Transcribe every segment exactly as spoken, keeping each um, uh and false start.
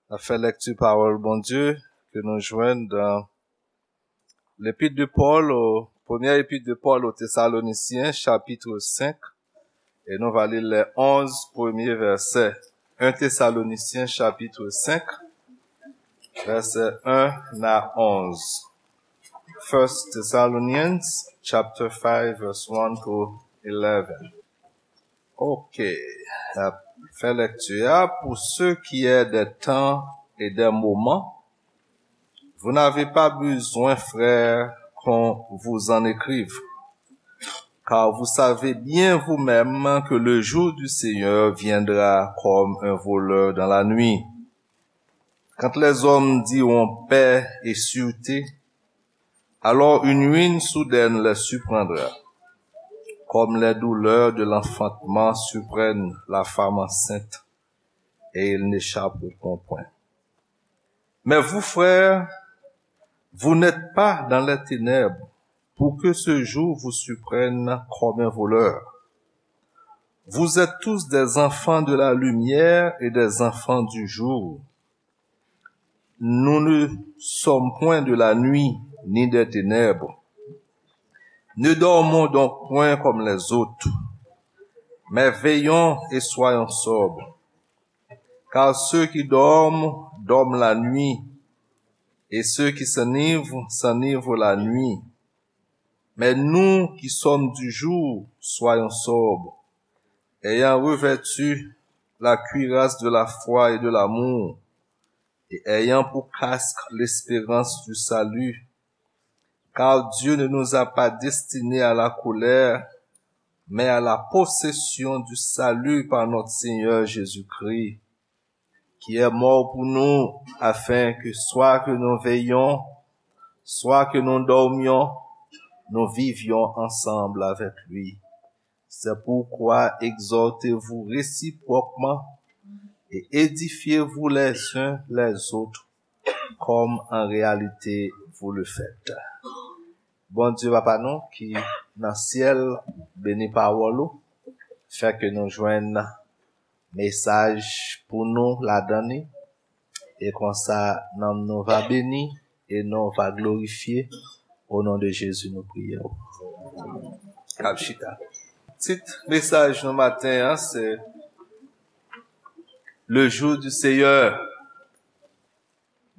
N ap fè lèkti pawòl Bondye ke nou jwenn dan L'épître de Paul au, première épître de Paul aux Thessaloniciens, chapitre cinq, et nou va li les onze premiers versets. Un Thessaloniciens, chapitre cinq, verset un à onze. First Thessalonians, chapter five, verse one to eleven. Ok, n ap fè lèkti a. Pour ce qui est des temps et des moments, vous n'avez pas besoin, frères, qu'on vous en écrive, car vous savez bien vous-même que le jour du Seigneur viendra comme un voleur dans la nuit. Quand les hommes diront paix et sûreté, alors une ruine soudaine les surprendra, comme les douleurs de l'enfantement surprennent la femme enceinte, et ils n'échapperont point. Mais vous, frères, vous n'êtes pas dans les ténèbres, pour que ce jour vous surprenne comme un voleur. Vous êtes tous des enfants de la lumière et des enfants du jour. Nous ne sommes point de la nuit ni des ténèbres. Ne dormons donc point comme les autres, mais veillons et soyons sobres. Car ceux qui dorment, dorment la nuit, et ceux qui s'enivrent, s'enivrent la nuit. Mais nous qui sommes du jour, soyons sobres, ayant revêtu la cuirasse de la foi et de l'amour, et ayant pour casque l'espérance du salut. Car Dieu ne nous a pas destinés à la colère, mais à la possession du salut par notre Seigneur Jésus-Christ, qui est mort pour nous, afin que soit que nous veillions, soit que nous dormions, nous vivions ensemble avec lui. C'est pourquoi exhortez-vous réciproquement et édifiez-vous les uns les autres, comme en réalité vous le faites. Bondye Papa nou ki nan syèl, beni pawòl ou, fè ke nou jwenn mesaj pou nou ladan li, e konsa nanm nou va beni e non va glorifye. O non de Jezi nou priye w. N ap chita. Tit mesaj nou maten an se Le jour du Seigneur.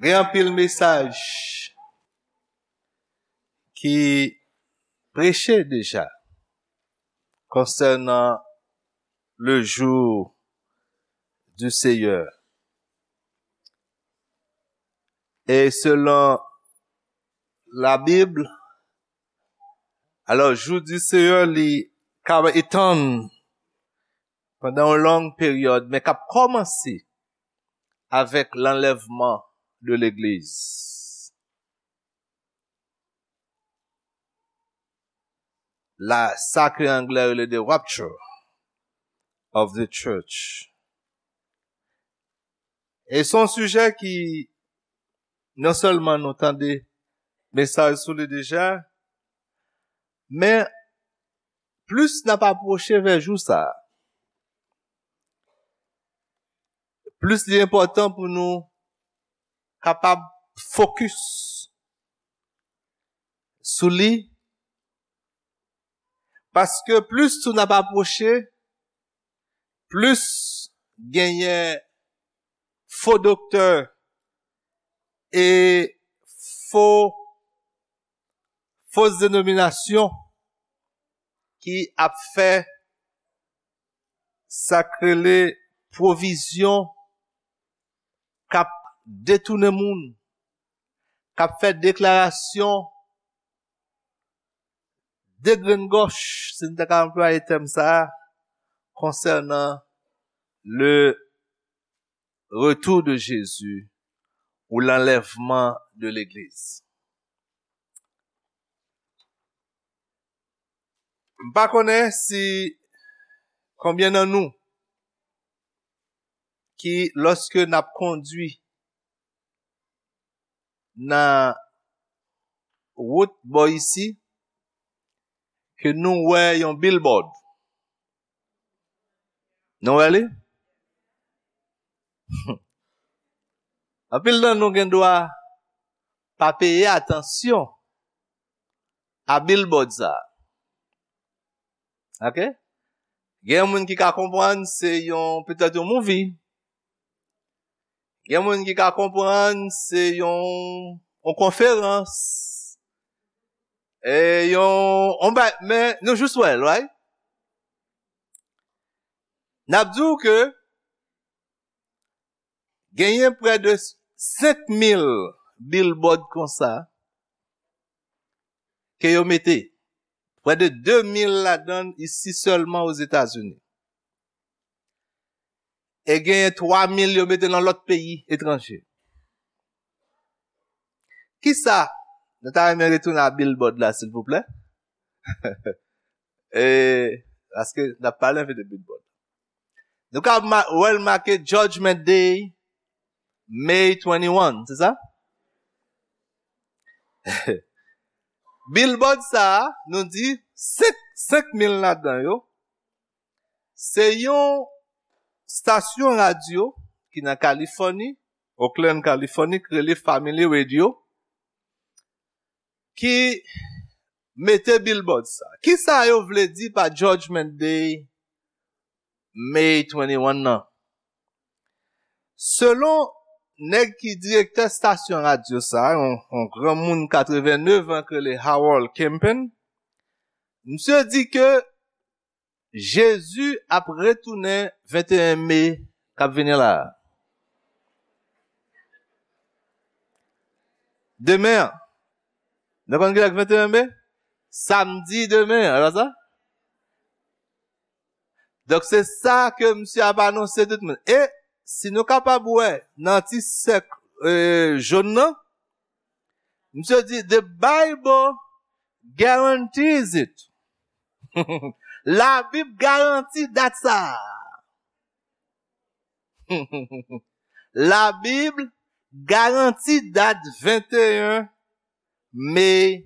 Gen anpil mesaj ki preche deja konsènan le jour du Seigneur. E selon Labib, alò, jou di Seyè, li ka etann pandan yon long peryòd, men k ap kòmanse avèk lanlèvman de legliz. La, sa ke anglè rele the rapture of the church. E se yon sijè ki non sèlman nou tande mesaj sou li deja, men plis n ap apwoche vè jou sa a, plis li enpòtan pou nou kapab fokis sou li, paske plis tou n ap apwoche, plis genyen fo doktè e fo, fo denominasyon ki ap fè sa k rele pwovizyon, k ap detounen moun, k ap fè deklarasyon degrengòch, si n ta ka anplwaye tèm sa a, konsènan le retour de Jésus ou l'enlèvement de l'église. M pa konnen si konbyen nan nou ki, lòske n ap kondwi nan wout bò isi, ke nou wè yon billboard. Nou wè li? Anpil nan nou gen dwa pa peye atansyon a billboard sa. Ok? Gen moun ki ka konprann se yon, petèt yon movie. Gen moun ki ka konprann se yon, yon konferans. E yon, yon ba, men nou jis wè l, right? N ap di w ke genyen prè de senk mil billboard konsa ke yo mete. Prè de de mil ladan l isi sèlman Ozetazini. E genyen twa mil yo mete nan lòt peyi etranje. Kisa? Nou ta renmen retounen a billboard la, silvouplè. E, paske n ap pale anpil de billboard. Nou ka ma-, wè l make Judgment Day, May twenty-one, se sa? Billboard sa a, nou di senk, senk mil ladan yo, se yon stasyon radyo ki nan Kalifòni, Oakland, Kalifòni, ki rele Family Radio, ki mete billboard sa. Kisa yo vle di pa Judgment Day, May twenty-one nan? Selon nèg ki direktè stasyon radyo sa, yon, yon granmoun katrevennev an ki rele Harold Camping, misye di ke Jezi ap retounen venteyen me k ap vini la. Demen an. Nou konn kilè k venteyen me? Samdi demen an, e pa sa? Donk, se sa ke misye ap anonse tout moun. E si nou kapab wè nan ti sèk, e, jòn nan, misye di, "The Bible guarantees it." Labib garanti dat sa a. Labib garanti dat venteyen me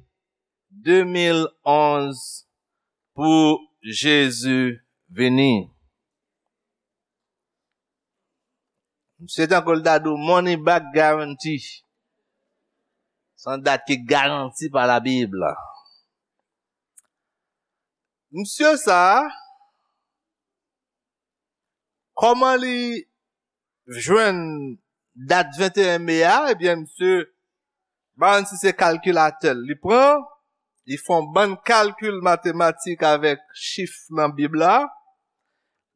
de mil onz pou Jezi vini. Misye tankou l ta di w money back guarantee. Se yon dat ki garanti pa Labib la. Misye sa a, kòman li jwenn dat venteyen me a? Ebyen, misye, pa konn si se kalkilatè l li pran, li fè yon bann kalkil matematik avèk chif nan Bib la,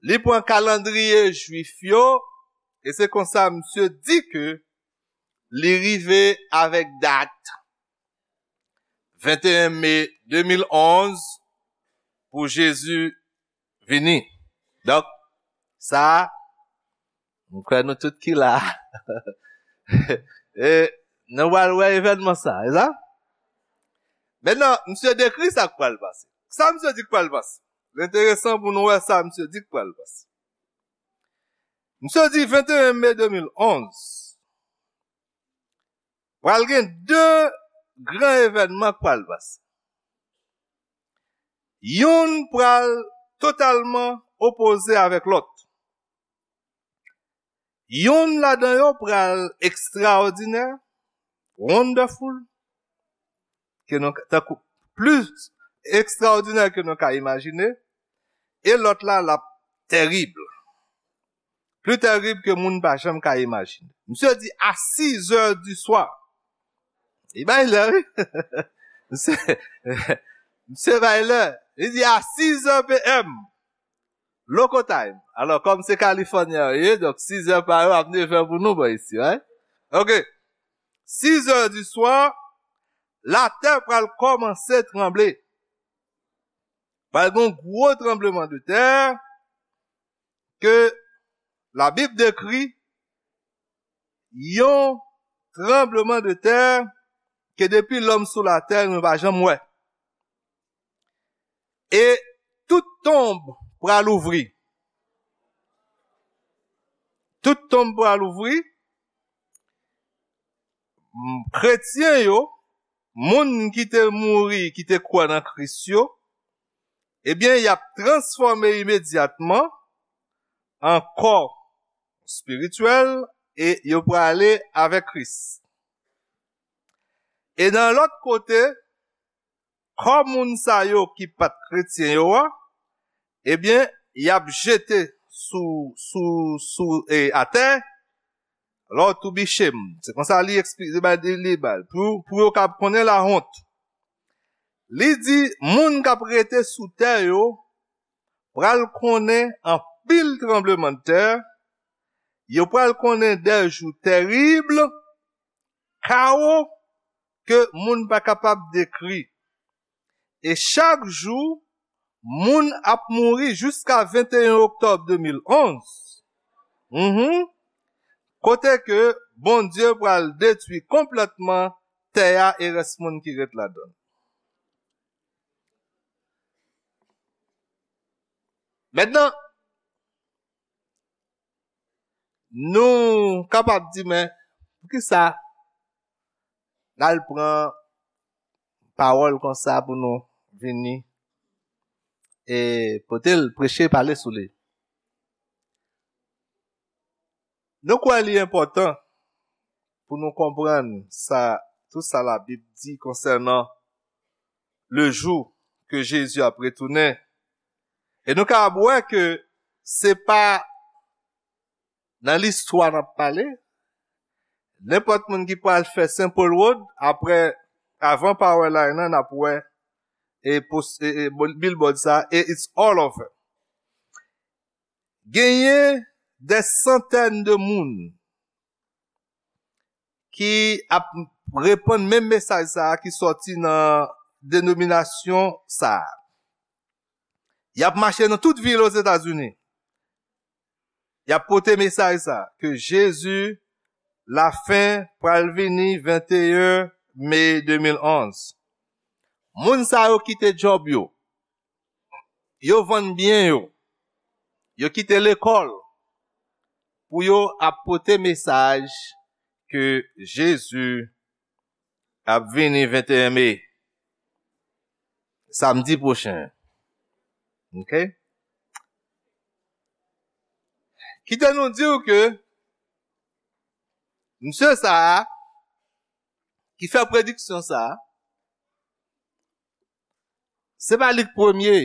li pran kalandriye jwif yo, e se konsa misye di ke li rive avèk dat venteyen me de mil onz pou Jezi vini. Donk, sa, m kwè nou tout ki la. E, nou pral wè evènman sa, e sa? Mentnan, misye dekri sa k pral pase. Sa misye di k pral pase? L enteresan pou nou wè sa misye di k pral pase. Misye di venteyen me de mil onz, pral gen de gran evènman k pral pase. Youn pral totalman opoze avèk lòt. Youn ladan yo pral ekstraòdinè, wonderful, ke nou, tankou, plis ekstraòdinè ke nou ka imajine, e lòt la, l ap tèrib. Pli tèrib ke moun pa janm ka imajine. Misye di a sizè di swa. Li bay lè, wi. Misye, misye bay lè. Li di a sizè P M. Local time. Alò, kòm se Kalifònyen yo ye, donk sizè pa yo ap nevè pou nou bò isi, right? Ok. Sizè di swa, latè pral kòmanse tranble. Pral gen yon gwo tranbleman de tè ke Labib dekri yon tranbleman de tè ke depi lòm sou latè, nou pa janm wè. E tout tonb pral ouvri. Tout tonb pral ouvri. M, kretyen yo, moun ki te mouri, ki te kwè nan Kris yo, ebyen, y ap transfòme imedyatman an kò espirityèl, e yo prale avèk Kris. E nan lòt kote, kò moun sa yo ki pa t kretyen yo a, ebyen, y ap jete sou, sou, sou, e, atè, lò tou biche m. Se konsa li eksplike, li bay, li, li bay. Pou, pou yo kab konnen lawont. Li di, moun k ap rete sou tè yo pral konnen anpil tranblemanntè, yo pral konnen de jou terib, kawo ke moun pa kapab dekri. E chak jou, moun ap mouri jiska venteyen oktòb de mil onz. Mhm. Kote ke Bondye pral detwi konplètman tè a e rès moun ki ret ladan l. Mentnan, nou kapab di, men, poukisa n al pran pawòl konsa pou nou vini e pote l, preche, pale sou li? Nou kwè li enpòtan pou nou konprann sa, tout sa Labib di konsènan le jou ke Jezi ap retounen. E nou kapab wè ke se pa nan listwa n ap pale. Nenpòt moun ki pral fè Saint Paul Road, apre, avan Power Line nan, n ap wè e, pos- e, e billboard sa, e it's all over. Genyen de santèn de moun ki ap repann menm mesaj sa a ki sòti nan denominasyon sa a. Y ap mache nan tout vil Ozetazini. Y ap pote mesaj sa a, ke Jezi lafen pral vini venteyen me de mil onz. Moun sa yo kite djòb yo. Yo vann byen yo. Yo kite lekòl pou yo ap pote mesaj ke Jezi ap vini venteyen me, samdi pwochen. Ok? Kite nou di w ke msye sa a, ki fè prediksyon sa a, se pa li k premye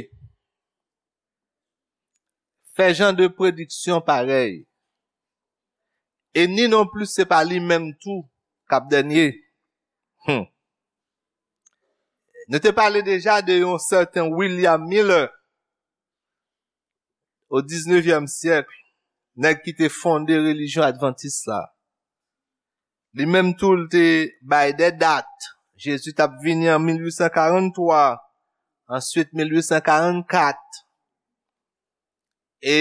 fè jan de prediksyon parèy. E ni non plis se pa li menm tou k ap dènye. Hmm. Nou te pale deja de yon sèten William Miller o diznevyèm syèk, nèg ki te fonde relijyon advantis la. Li menm tou, l te bay de dat. Jezi t ap vini an mil uit san karant twa, answit mil uit san karant kat. E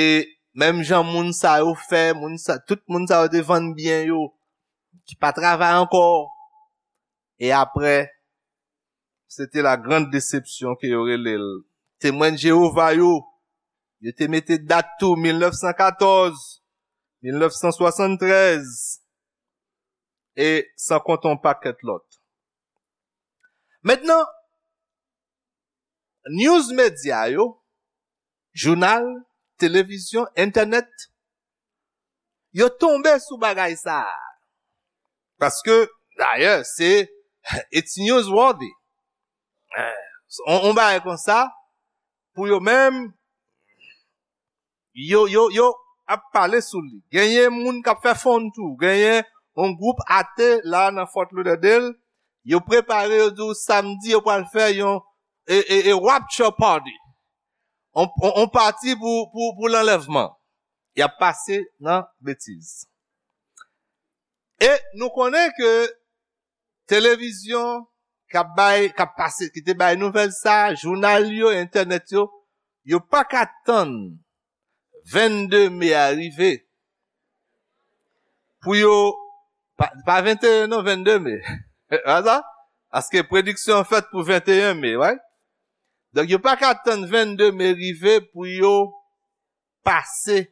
menm jan moun sa yo fè, moun sa, tout moun sa yo te vann byen yo, ki pa travay ankò. E apre, se te la grande déception ke yo rele l. Temwen Jewova yo, yo te mete dat tou, mil nèf san katòz, mil nèf san swasanntrèz, e san konte yon pakèt lòt. Mentnan, news medya yo, jounal, televizyon, entènèt, yo tonbe sou bagay sa a. Paske, dayè, se, it's newsworthy. Eh, on, on bagay konsa, pou yo menm, yo, yo, yo ap pale sou li. Genyen moun k ap fè fon tou. Genyen yon gwoup ate la nan Fort Lauderdale. Yo prepare, yo di w samdi, yo pral fè yon e, e, e rapture party. On, on, on pati pou, pou, pou lanlèvman. Y ap pase nan betiz. E nou konnen ke televizyon k ap bay, k ap pase, ki te bay nouvèl sa, jounal yo, entènèt yo, yo pa ka tann vennde me a rive pou yo, pa, pa venteyen non, vennde me. Aza? Paske prediksyon an fèt pou venteyen me, right? Donk, yo pa ka tann vennde me rive pou yo pase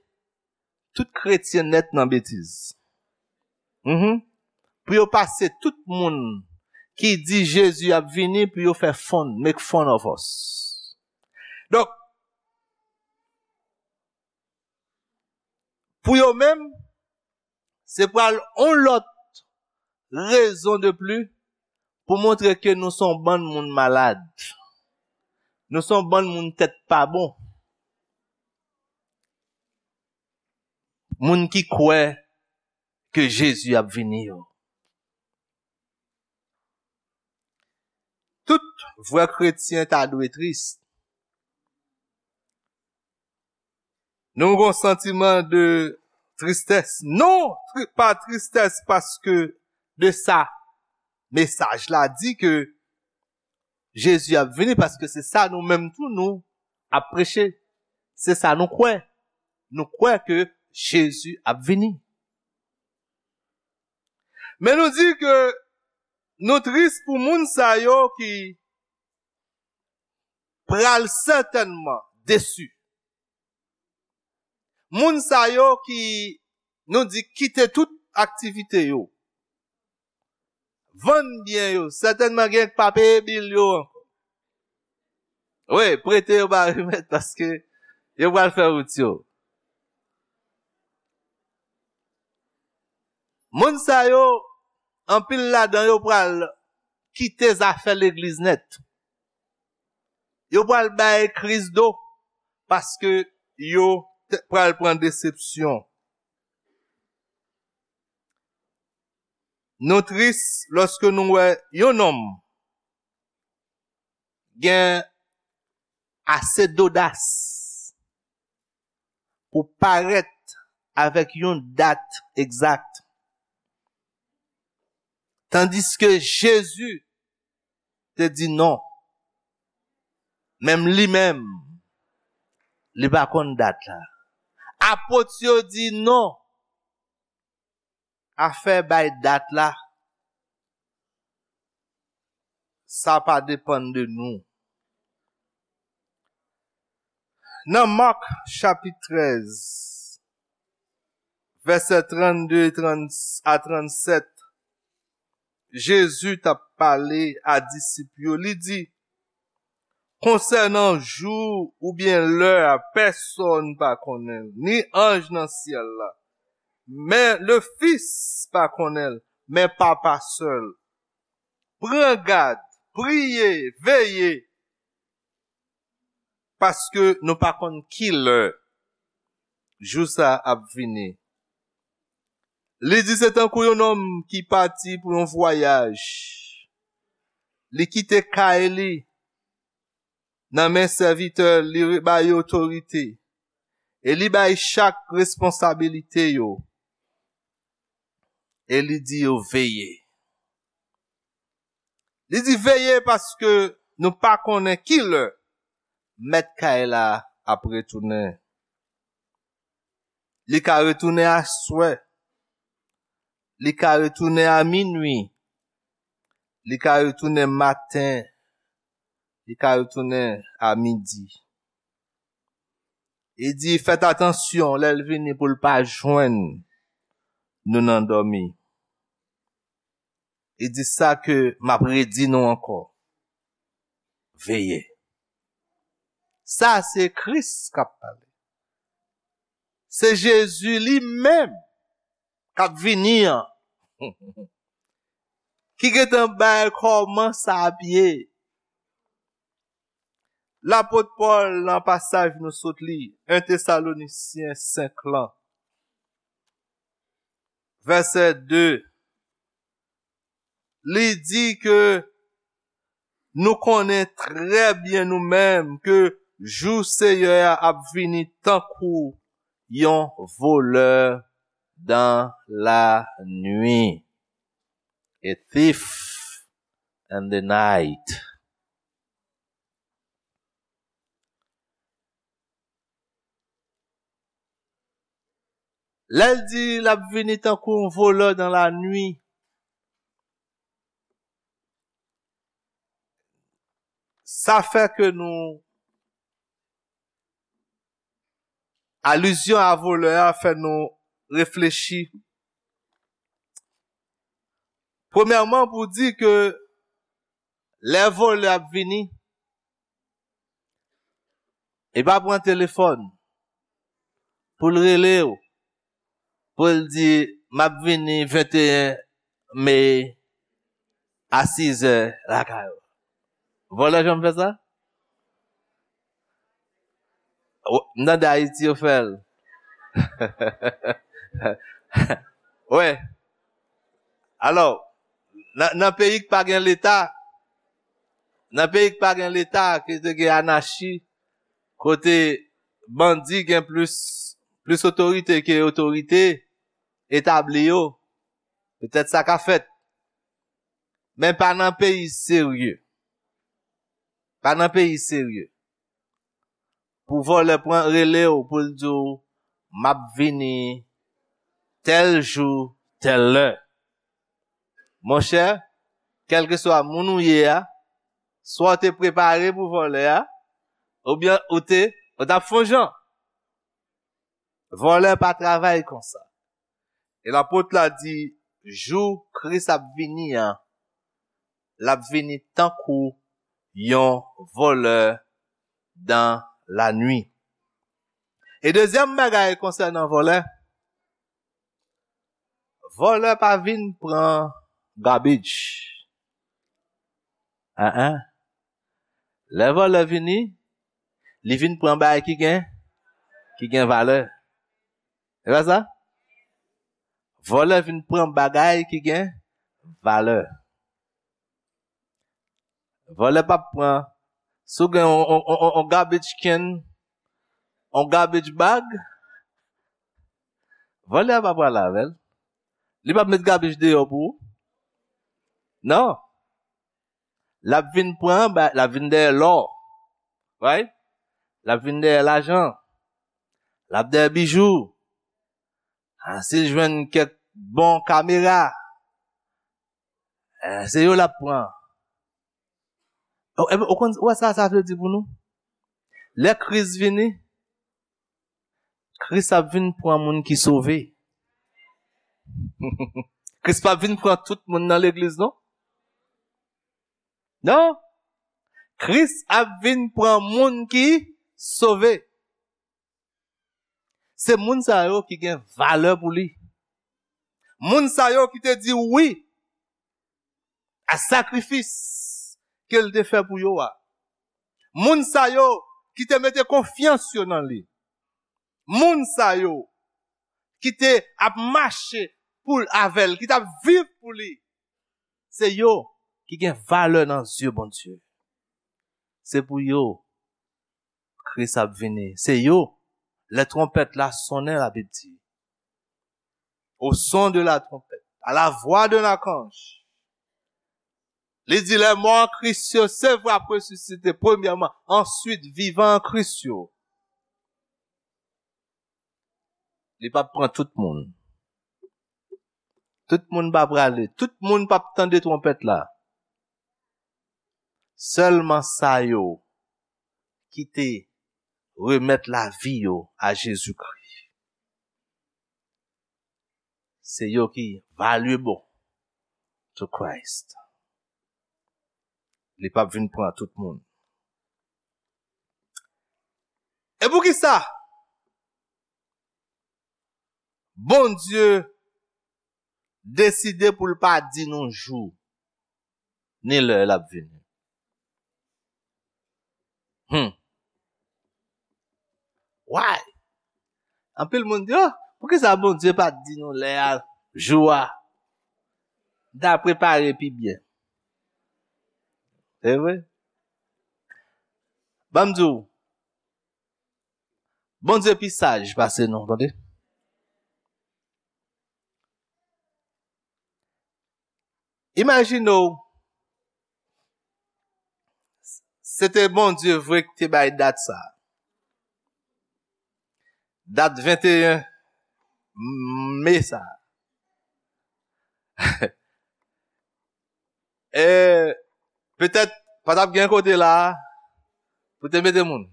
tout kretyen nèt nan betiz. Mhm. Pou yo pase tout moun ki di Jezi ap vini, pou yo fè fun, make fun of us. Donk, pou yo menm, Se pral yon lòt rezon de pli pou montre ke nou se yon bann moun malad. Nou se yon bann moun tèt pa bon. Moun ki kwè ke Jezi ap vini yo. Tout vrè kretyen ta dwe tris. Nou gon santiman de tristès. Non, tri- pa tristès paske de sa. Mesaj la di ke Jezi ap vini paske se sa nou menm tou nou ap preche. Se sa nou kwè. Nou kwè ke Jezi ap vini. Men nou di ke nou tris pou moun sa yo ki pral sètènman desi. Moun sa yo ki nou di kite tout aktivite yo, vann byen yo, sètènman gen k pa peye bil yo ankò. Wi, prete yo ba remèt paske yo pral fè wout yo. Moun sa yo, anpil ladan yo pral kite zafè legliz nèt. Yo pral bay Kris do paske yo te- pral pran desepsyon. Nou tris lòske nou wè yon nonm gen ase dodas pou parèt avèk yon dat egzak. Tandiske Jezi te di non. Menm li menm, li pa konn dat la. Apot yo di non. Afè bay dat la, sa pa depann de nou. Nan Mak chapit trèz, vèsè trannde a trannsèt, Jezi t ap pale a disip yo, li di, konsènan jou oubyen lè a, pèsonn pa konnen l, ni anj nan syèl la, men le Fis pa konnen l, men Papa sèl. Pran gad, priye, veye, paske nou pa konn ki lè jou sa a ap vini. Li di se tankou yon nonm ki pati pou yon vwayaj. Li kite kay li nan men sèvitè li, li ba yo otorite. E li bay chak responsabilite yo. E li di yo veye. Li di veye paske nou pa konnen ki lè mèt kay la ap retounen. Li ka retounen aswè. Li ka retounen a minwi. Li ka retounen maten. Li ka retounen a midi. Li di, fèt atansyon lè l vini pou l pa jwenn nou nan dòmi. Li di sa ke m ap redi nou ankò. Veye. Sa se Kris k ap pale. Se Jezi li menm k ap vini an. Ki gentan bay kòman sa ap ye. Lapot Pòl nan pasaj nou sot li, en Tesalonisyen senk lan, vèsè de, li di ke nou konnen trè byen nou menm ke jou Seyè a ap vini tankou yon volè dans la nuit. A thief in the night. Lè l di l ap vini tankou yon volè dans la nuit, sa fè ke nou, alizyon a volè a fè nou reflechi. Premyèman, pou di ke lè volè ap vini, li pa pran telefòn pou l rele w, pou l di, m ap vini venteyen me a sizè lakay ou. Vòlè janm fè sa? Ou- M tande Ayiti yo fè l. Wè. Alò, nan, nan peyi k pa gen Leta, nan peyi k pa gen Leta, ke te gen anachi, kote bandi gen plis, plis otorite ke otorite etabli yo, petèt sa ka fèt. Men pa nan peyi serye. Pa nan peyi serye. Pou vòlè pran rele w pou l di w, "M ap vini tèl jou, tèl lè." Monchè, kèlkeswa moun ou ye a, swa w te prepare pou vòlè a, oubyen ou te, ou t ap fè yon jan. Vòlè pa travay konsa. E lapot la di, jou Kris ap vini an, l ap vini tankou yon vòlè dan lannuit. E dezyèm bagay konsènan vòlè, vòlè pa vin pran garbage. An an. Lè vòlè vini, li vin pran bagay ki gen, ki gen valè. E pa sa? Vòlè vin pran bagay ki gen valè. Vòlè p ap pran. Si w gen on, on, on, on, on garbage can, on garbage bag, vòlè a pa pral avè l. Li p ap met garbage deyò pou ou. Non. L ap vin pran, ba- l ap vin dèyè lò. Right? L ap vin dèyè lajan. L ap dèyè bijou. Ah, si l jwenn kèk bon kamera, eh, se yo l ap pran. O, e, ou konn, ou wè sa sa vle di pou nou? Lè Kris vini, Kris ap vin pran moun ki sove. Kris p ap vin pran tout moun nan legliz, non? Non. Kris ap vin pran moun ki sove. Se moun sa yo ki gen valè pou li. Moun sa yo ki te di wi a sakrifis ke l te fè pou yo a. Moun sa yo ki te mete konfyans yo nan li. Moun sa yo ki te ap mache pou l avè l, ki t ap viv pou li. Se yo ki gen valè nan zye Bondye. Se pou yo Kris ap vini. Se yo, lè twonpèt la sonnen, Labib di, au son de la trompette, à la voix d'un archange. Li di, les morts en Christ yo, se vre, ap resisite premyèman, answit, vivan an Kris yo. Li p ap pran tout moun. Tout moun pa prale. Tout moun p ap tande twonpèt la. Sèlman sa yo ki te remèt lavi yo a Jezikri. Se yo ki valuable to Christ. Li p ap vin pran tout moun. E poukisa Bondye deside pou l pa di nou jou ni lè l ap vini? Hmm. Why? Anpil moun di, oh, poukisa Bondye pa t di nou lè a, jou a? L ta prepare pi byen. Se vre? Ban m di w, Bondye pi saj pase nou, tande. Imajine w, se te Bondye vre ki te bay dat sa. Dat venteyen me sa. E petèt, pa t ap gen kote la a pou te mete moun.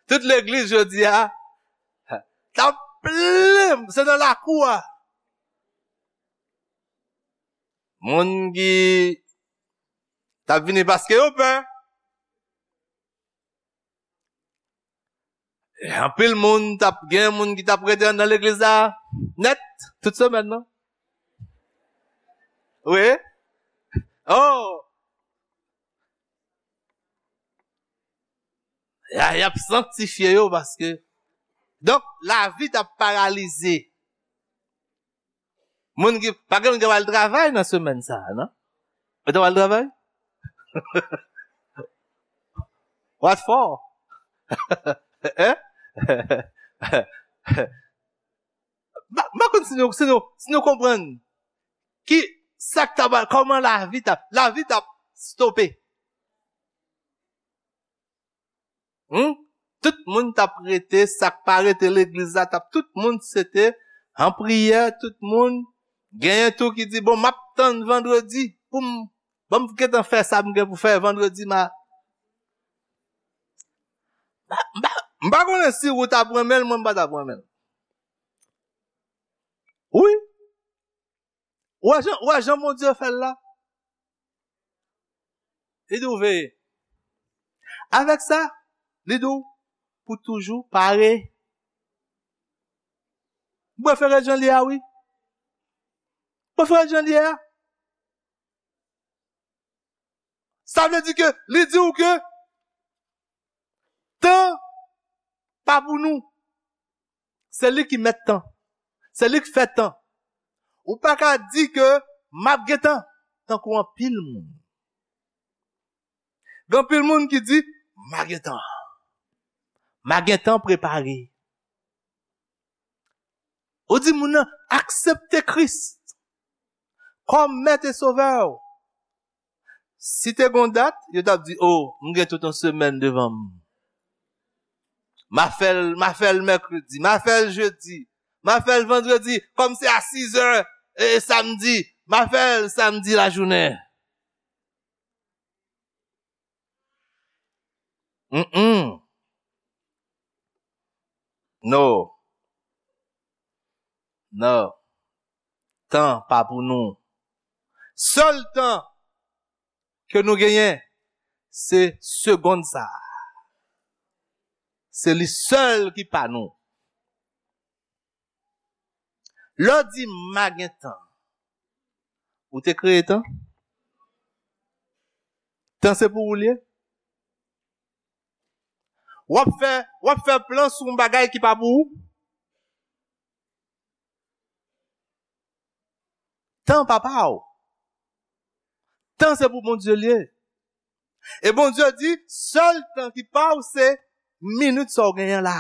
Tout legliz jodi a, t ap plen, se nan lakou a. Moun ki t ap vini paske yo pè. Anpil moun t ap gen moun ki t ap rete anndan legliz la nèt tout semèn nan. Wi. Oh! Y a, y ap sanktifye yo paske. Donk, lavi t ap paralize. Moun ki, pa gen moun ki pral travay nan semèn sa a, non? Ou te pral travay? What for? Hein? M pa, m pa konn si nou, si nou, si nou konprann ki sa k ta pral, kòman lavi t ap, lavi t ap stope. Hmm? Tout moun t ap rete, sa k pa rete legliz la, t ap, tout moun se te an priyè, tout moun genyen tou ki di, bon, m ap tann vandredi pou m, ban m gentan fè sa m gen pou fè vandredi, ma, m pa, m pa, m pa konnen si ou t ap renmen l, mwen m pa t ap renmen l. Wi. Ou wè jan, ou wè jan Bondye fè l la? Li di w veye. Avèk sa, li di w pou toujou pare. M prefere jan l ye a, wi. M prefere jan l ye a. Sa vle di ke li di w ke tan pa pou nou. Se li ki mèt tan. Se li ki fè tan. Ou pa ka di ke m ap gen tan, tankou anpil moun. Gen anpil moun ki di, m a gen tan. M a gen tan prepare. Ou di moun nan, aksepte Kris kòm Mèt e Sovè w. Si te gon dat, yo t ap di, o, m gen tout yon semèn devan m. M a fè l, m a fè l mèkredi, m a fè l jedi, m a fè l vandredi, kòm se a sizè, e, samdi, m a fè l samdi lajounen. Mm-mm. No. No. Tan pa pou nou. Sèl tan ke nou genyen, se segonn sa a. Se li sèl ki pa nou. Lè w di m a gen tan, ou te kreye tan? Tan se pou ou l ye? W ap fè, w ap fè plan sou yon bagay ki pa pou ou? Tan pa pa w. Tan se pou Bondye l ye. E Bondye di, sèl tan ki pa w se minit sa w genyen la.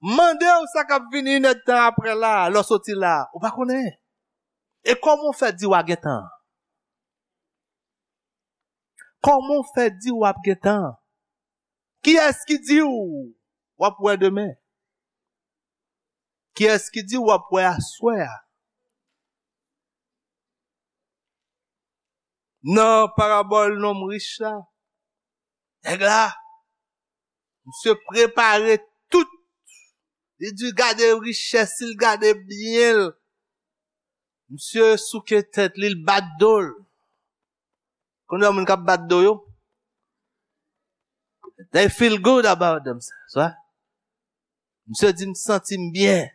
Mande w sa k ap vini inèdtan apre la, lè w soti la, ou pa konnen. E kòman w fè di w a gen tan? Kòman w fè di w ap gen tan? Kiyès ki di w w ap wè demen? Kiyès ki di w w ap wè aswè a? Nan parabòl nonm rich la, nèg la, misye prepare tout. Li di gade richès, li gade byen l. Misye souke tèt li, l bat do l. Kounye a moun k ap bat do yo, they feel good about themselves, right? Misye di, m santi m byen.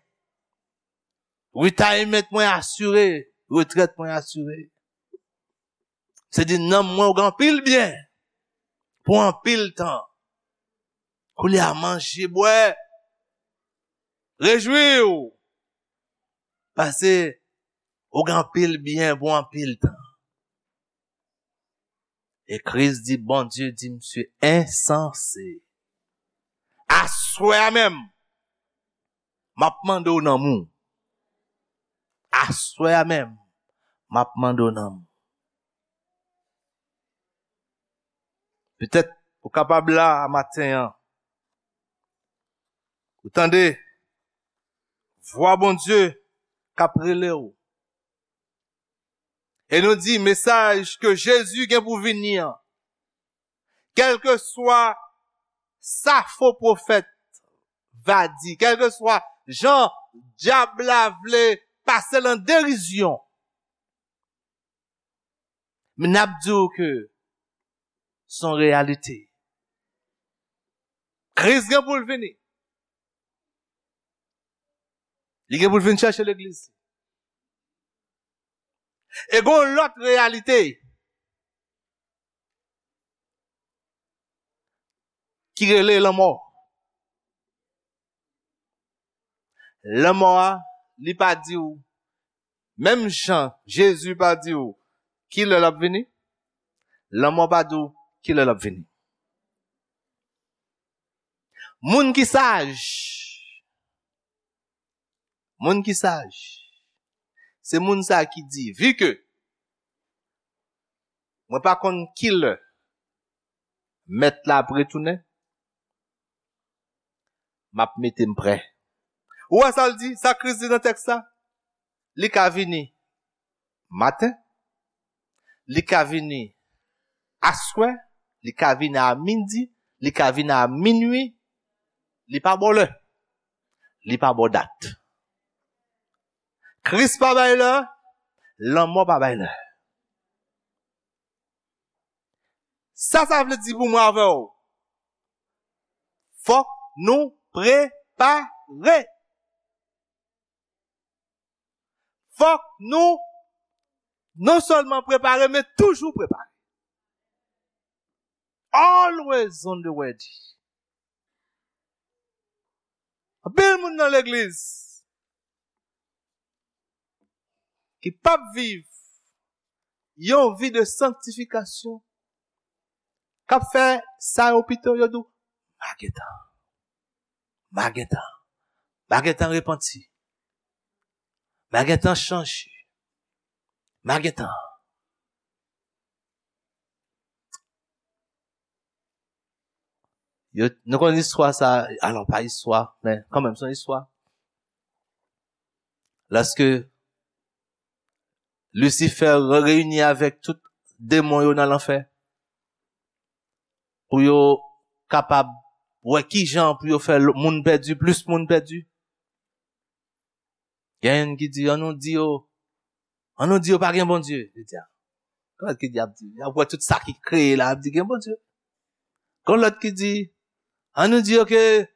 Retirement mwen asire, retrèt mwen asire. Se di nanm mwen ou gen anpil byen pou anpil tan. Koulye a manje, bwè, rejwi w. Pase ou gen anpil byen pou anpil tan. E Kris di, Bondye di misye ensanse. Aswè a menm, m ap mande w nanm ou. Aswè a menm, m ap mande w nanm ou. Petèt ou kapab la a maten an. Ou tande vwa Bondye k ap rele w. E nou di mesaj ke Jezi gen pou vini an. Kèlkeswa sa fo pwofèt va di, kèlkeswa jan dyab la vle pase l an derizyon, men n ap di w ke se yon reyalite. Kris gen pou l vini. Li gen pou l vin chèche legliz. E gon lòt reyalite ki rele lanmò. Lanmò a, li pa di w, menm jan Jezi pa di w ki lè l ap vini, lanmò pa di w ki lè l ap vini. Moun ki saj, moun ki saj, se moun sa ki di, vi ke mwen pa konn ki lè mèt la ap retounen, m ap mete m prè. Ou wè sa l di, sa Kris di nan tèks la? Li ka vini maten, li ka vini aswè, li ka vini a midi, li ka vini a minui, li pa ba w lè, li pa ba w dat. Kris pa bay lè, lanmò pa bay lè. Sa sa vle di pou mwen avè w? Fòk nou prepare. Fòk nou non sèlman prepare, men toujou prepare. Always on the ready. Anpil moun nan legliz ki p ap viv yon vi de sanktifikasyon, k ap fè sa yo pito, yo di w, "M a gentan, m a gentan, m a gentan repanti, m a gentan chanje, m a gentan." Yo, nou konn istwa sa, alò pa istwa, men kanmenm, se yon istwa. Lòske Lisifè re-, reyini avèk tout demon yo nan lanfè, pou yo kapab wè ki jan pou yo fè l-, moun pèdi, plis moun pèdi. Gen youn ki di, "An nou di yo, an nou di yo pa gen Bondye." Li di, "A, gon lòt ki di, ap di, y ap wè tout sa ki kreye la, ap di gen Bondye." Gon lòt ki di, "An nou di yo ke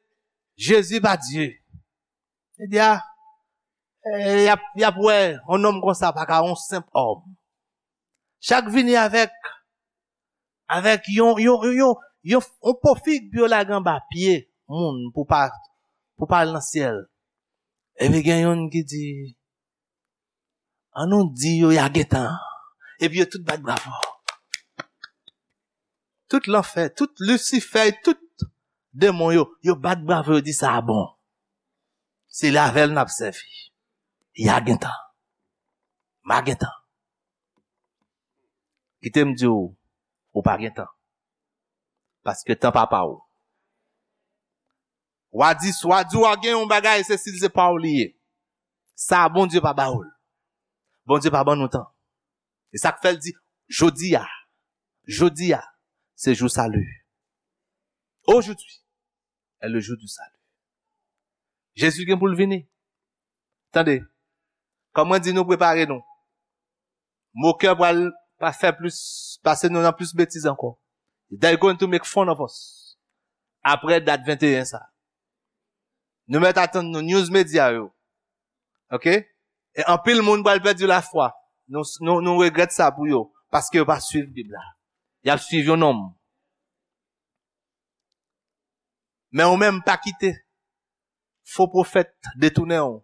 Jezi pa Dye." Li di, "A, e, y ap, y ap wè, yon nonm konsa pa ka yon senp òm." Chak vini avèk, avèk yon, yon, yon, yon, yon po fig pou yo lage anba pye moun pou pa, pou pa al nan syèl. Epi gen youn ki di, "An nou di yo y a gentan." Epi yo tout bat bravo. Tout lanfè, tout Lisifè, tout demon yo, yo bat bravo, yo di, "Sa a bon. Se avè l n ap sèvi. Y a gentan. M a gentan." Kite m di w, ou pa gen tan. Paske tan pa pa w. W a di, w a di w a gen yon bagay, se si l se pa w li ye. Sa a Bondye pa ba w l. Bondye pa ban nou tan. E sa k fè l di, jodi a, jodi a, se jou sali. Aujourd'hui est le jour du salut. Jezi gen pou l vini. Tande, kòm mwen di nou prepare nou. Mokè pral pa fè plis, pase nou nan plis betiz ankò. They going to make fun of us. Apre dat venteyen sa. Nou mèt atann nou news media yo. Ok? E anpil moun pral pèdi lafwa. Nou, nou, nou regrèt sa pou yo. Paske yo pa swiv Bib la. Y ap swiv yon nonm. Men ou menm pa kite fo pwofèt detounen w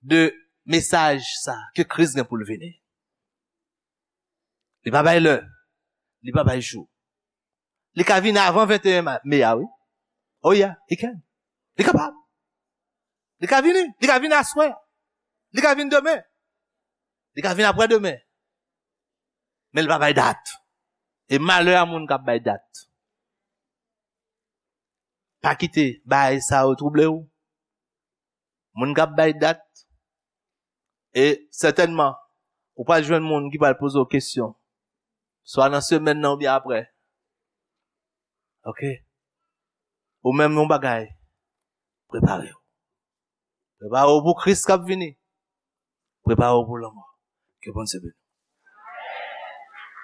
de mesaj sa ke Kris gen pou l vini. Li pa bay lè, li pa bay jou. Li ka vini avan venteyen ma-, me a, wi. Oh yeah, he can. Li kapab. Li ka vini, li ka vini aswè. Li ka vini demen. Li ka vini apre demen. Men li pa bay dat. E malè a moun k ap bay dat. Pa kite bagay sa yo twouble w. Moun k ap bay dat, e sètènman, ou pral jwenn moun ki pral poze w kesyon. Swa nan semèn nan oubyen apre. Ok? Ou menm yon bagay, prepare w. Prepare w pou Kris k ap vini. Prepare w pou lanmò. Ke Bondye beni w.